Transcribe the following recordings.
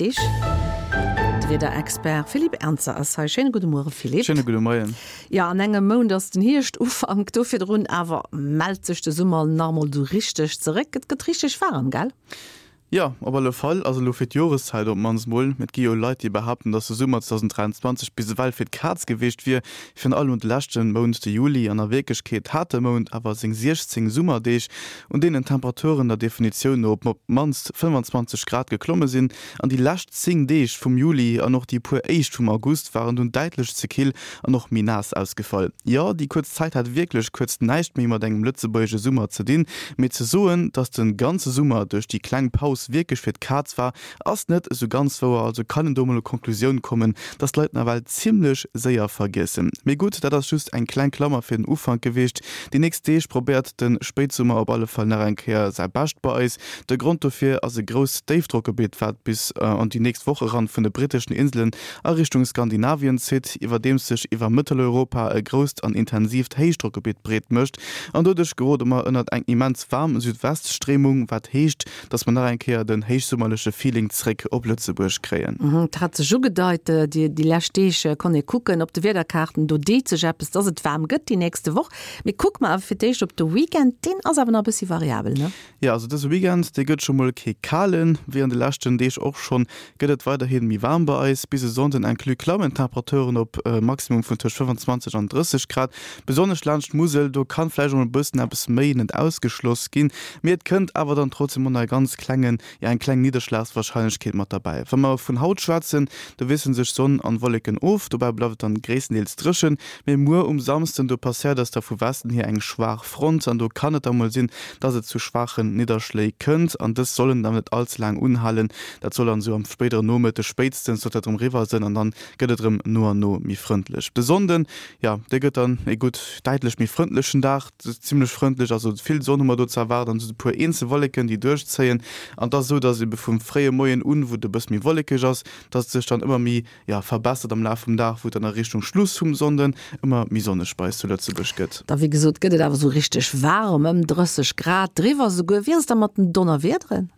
nächst Deeg. De Wiederexpert Philippe Ernzer ass hei. Schéine gudde Muere Philippe. Schéine gudde Moien. Jo, an engem Mount ass den Hierscht-Ufank. Do virdrun awer mellt sech de Summer nach emol esou richteg zeréck. Et gëtt richteg waarem, gell? Jo, op alle Fall. Also elo fir d'Joreszäit op d'mannst mol. Et gi jo Leit, déi behaapten, datt de Summer 2023 bis ewell fir d'Kaz gewiescht wier, virun allem de leschte Mount, de Juli. An a Wierklechkeet hat de Mount awer seng 16 Summerdeeg, un deenen d'Temperaturen der Definitioun no op d'mannst 25 Grad geklomme sinn. An déi lescht 10 Deeg vum Juli an och déi puer éischt vum August waren dunn däitlech ze kill an och méi naass ausgefall. Jo, déi kuerz Zäit hat wierklech kuerz näischt méi mat engem lëtzebuergesche Summer ze dinn, mee ze soen, dass de ganze Summer duerch déi kleng Paus wierklech fir d'Kaz war, ass net esou ganz wouer. Also kann een do mol u Konklusioun kommen, dass d'Leit nawell zimmlech séier vergiessen. Mee gutt, dat ass just eng kleng Klammer fir den Ufank gewiescht. Déi nächst Deeg probéiert de Spéitsummer op alle Fall nach eng Kéier säi Bescht bei eis. De Grond dofir ass e grousst Déifdrockgebitt, wat bis an déi nächst Woch eran vun de britteschen Inselen a Richtung Skandinavien zitt, iwwerdeems sech iwwer Mëtteleuropa e grousst an intensiivt Héichdrockgebitt breet mécht. An doduerch gerode mer ënnert eng immens waarm Südweststréimung, wat heescht, dass mer nach eng Kéier den héichsummerleche Feeling zréck op Lëtzebuerg kréien. Et hat sech ugedeit, déi lescht Deeg konnt ee kucken op de Wiederkaarten, do deet sech eppes, dass et waarm gëtt déi nächste Woch. Mee kucke mer awer fir d'éischt op de Weekend, deen ass awer nach e bëssi variabel, ne? Jo, also dëse Weekend, dee gëtt scho mol kee kalen. Wéi an de leschten Deeg och schonn, gëtt et weiderhi méi waarm bei eis. Bis e Sonnden inclus klammen d'Temperaturen op e Maximum vun tëscht 25 an 30 Grad. Besonnesch laanscht d'Musel, do kann vläicht och mol e bëssen eppes méi net ausgeschloss ginn, mee et kënnt awer dann trotzdem och nach e ganz klengen, jo eng kleng Nidderschlagswarscheinlechkeet mat derbäi. Wa mer vun haut schwätzen, do wiessele sech Sonn an Wolleken of, dobäi bleift et dann gréisstendeels dréchen, mee muer um Samsden, do passéiert eis da vu Westen hier eng schwaach Front an do kann et da mol sinn, dass et zu schwaachen Nidderschléi kënnt an dës sollen dann net all ze laang unhalen. Dat soll dann esou am spéidere Nomëtteg spéitstens sollt dat erëm eriwwer sënn an dann gëtt et erëm no an no méi frëndlech. De Sonnden, jo, dee gëtt dann e gutt däitlech méi frëndlechen Dag, zimmlech frëndlech, also vill Sonn hu mer do ze erwaarden an esou e puer eenzel Wolleken, déi duerchzéien. An et ass esou, dass ebe vum fréie Moien un, wou et e bësse méi wollekeg ass, dass et sech dann ëmmer méi jo, verbessert am Laf vum Dag, wou et dann a Richtung Schluss vum Sonnden ëmmer méi sonneg bei eis zu Lëtzebuerg gëtt. Da wéi gesot gëtt et awer esou richteg waarem, ëm 30 Grad, driwwer esouguer. Wéi ass et da mat den Donnerwiederen?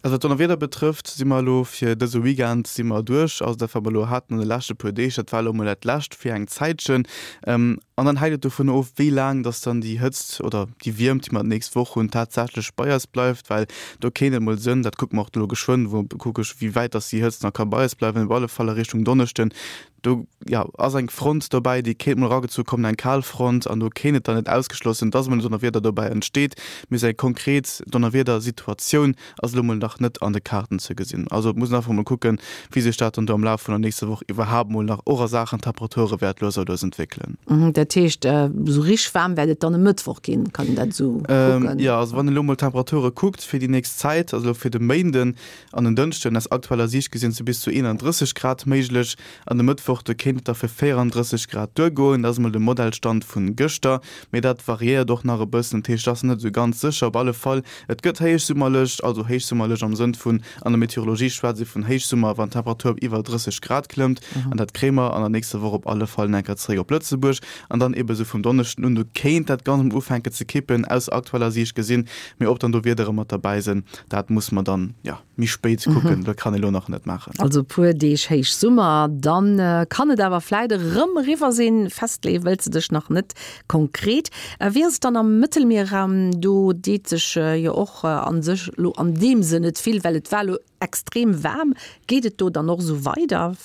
Also wat d'Donnerwieder betrëfft, si mer elo fir dëse Weekend si mer duerch. Also dat wat mer elo haten an de leschte puer Deeg, dat war elo emol dat lescht fir eng Zäitchen. An dann hänkt et dovun of, wéi laang dass dann déi Hëtzt oder déi Wiermt, déi mer d'nächst Woch hunn, tatsächlech bei eis bleift, well do kéint et mol sënn, dat kucke mer och elo geschwënn, wou kucke ech, wéi wäit dass déi Hëtzt nach ka bei eis bleiwen, op alle Fall a Richtung Donneschden, do, jo, ass eng Front dobäi, déi kéint mol eragezu kommen, eng Kalfront, an do kéint et dann net ausgeschloss sinn, dass emol en Donnerwieder dobäi entsteet. Mee sou eng konkret Donnerwiedersituatioun Ass elo mol nach net an de Kaarten ze gesinn. Also et muss een einfach mol kucken, wéi sech dat dann do am Laf vun der nächster Woch iwwerhaapt mol nach och a Saachen Temperature wäert lues a lues entwéckelen. Dat heescht, esou richteg waarm wäert et dann e Mëttwoch ginn, kann een dat esou kucken? Jo, also wann een elo mol d'Temperature kuckt fir déi nächst Zäit, also elo fir de Méinden an den Dënschden, aus aktueller Siicht gesinn, si bis zu 31 Grad méiglech. An de Mëttwoch, do kéint et da fir 34 Grad duergoen. Dat ass mol de Modellstand vun gëschter, mee dat variéiert och nach e bëssen. Dat heescht, et ass net esou ganz sécher. Op alle Fall, et gëtt héichsummerlech, also héichsummerlech am Sënn vun, an der Meteorologie schwätzt ee vun Héichsummer, wann d'Temperatur op iwwer 30 Grad klëmmt. An dat kréie mer an der nächster Woch op alle Fall enker zeréck op Lëtzebuerg. An dann ebe sou vum Donneschden un, do kéint dat Ganzt emol ufänken ze kippen, aus aktueller Siicht gesinn. Mee ob dann do Wiedere mat derbäi sinn, dat muss mer dann, jo. Méi spéit kucken, dat kann ee lo nach net maachen. Also e puer Deeg Héichsummer, dann kann et awer vläit erëm eriwwer sinn. Festleeë wëlls de dech nach net konkret. Wéi ass et dann am Mëttelmierraum? Do deet sech jo och a sech lo an deem Sënn net vill, well et war lo extrem waarm. Geet et do dann och esou weider?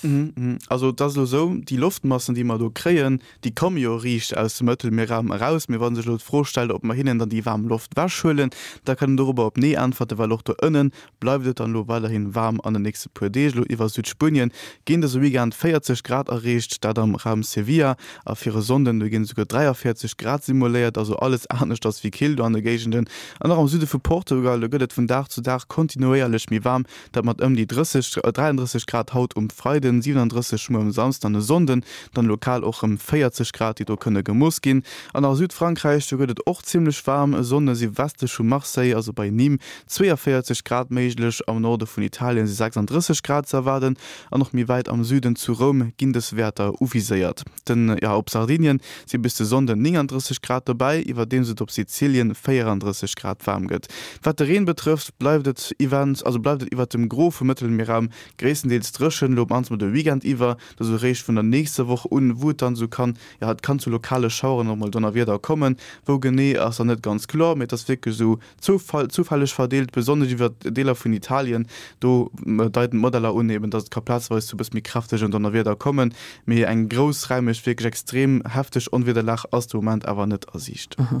Also et ass elo esou, déi Loftmassen, déi mer do kréien, Déi komme jo riicht aus dem Mëttelmierraum eraus. Mee wa sech elo d'Fro stellt, ob mer hinnen dann déi waarm Loft wechhuelen, da kann een dorobber op Nee äntwerten, well och do ënne bleift et dann elo weiderhi waarm an den nächste puer Deeg. Elo iwwer Südspuenien ginn dëse Weekend 40 Grad erreecht, dat am Raum Sevilla, a fir e Sonnden, do ginn esouguer 43 Grad simuléiert, also alles aneschters wéi kill do an de Géigenden. An och am Süde vu Portugal, do gëtt et vun Dag zu Dag kontinuéierlech méi waarm, Dat mat ëm déi 30, 33 Grad haut um Freiden, 37 muer um Samsden an e Sonnden, dann lokal och rëm 40 Grad, déi do kënne gemooss ginn. An a Südfrankräich, do gëtt et och zimmlech waarm. E Sonnde si westlech vu Marseille, also bei Nîmes, 42 Grad méiglech. am Norde vun Italien si 36 Grad ze erwaarden an och méi wäit am Süden zu Roum ginn dës Wäerter uviséiert. Den, jo, op Sardinien si bis de Sonnden 39 Grad dobäi, iwwerdeems et op Sizilien 34 Grad waarm gëtt. Wat de Reen betrëfft, bleift et iwwent, also bleift et iwwert dem Gros vum Mëttelmierraum gréisstendeels dréchen, elo op mannst mol de Weekend iwwer. Et ass eréischt vun der nächster Woch un, wou et dann esou kann, jo, et kann zu lokale Schaueren och mol Donnerwieder kommen. Wou genee ass nach net ganz kloer, mee et ass wierklech esou zufälleg verdeelt, besonnesch iwwer Deeler vun Italien. Do deiten d'Modeller un eben, dass et ka plazeweis zu e bësse méi kräftegen Donnerwieder kommen, mee eng groussräimeg, wierklech extrem hefteg Onwiederlag ass de Moment awer net a Siicht.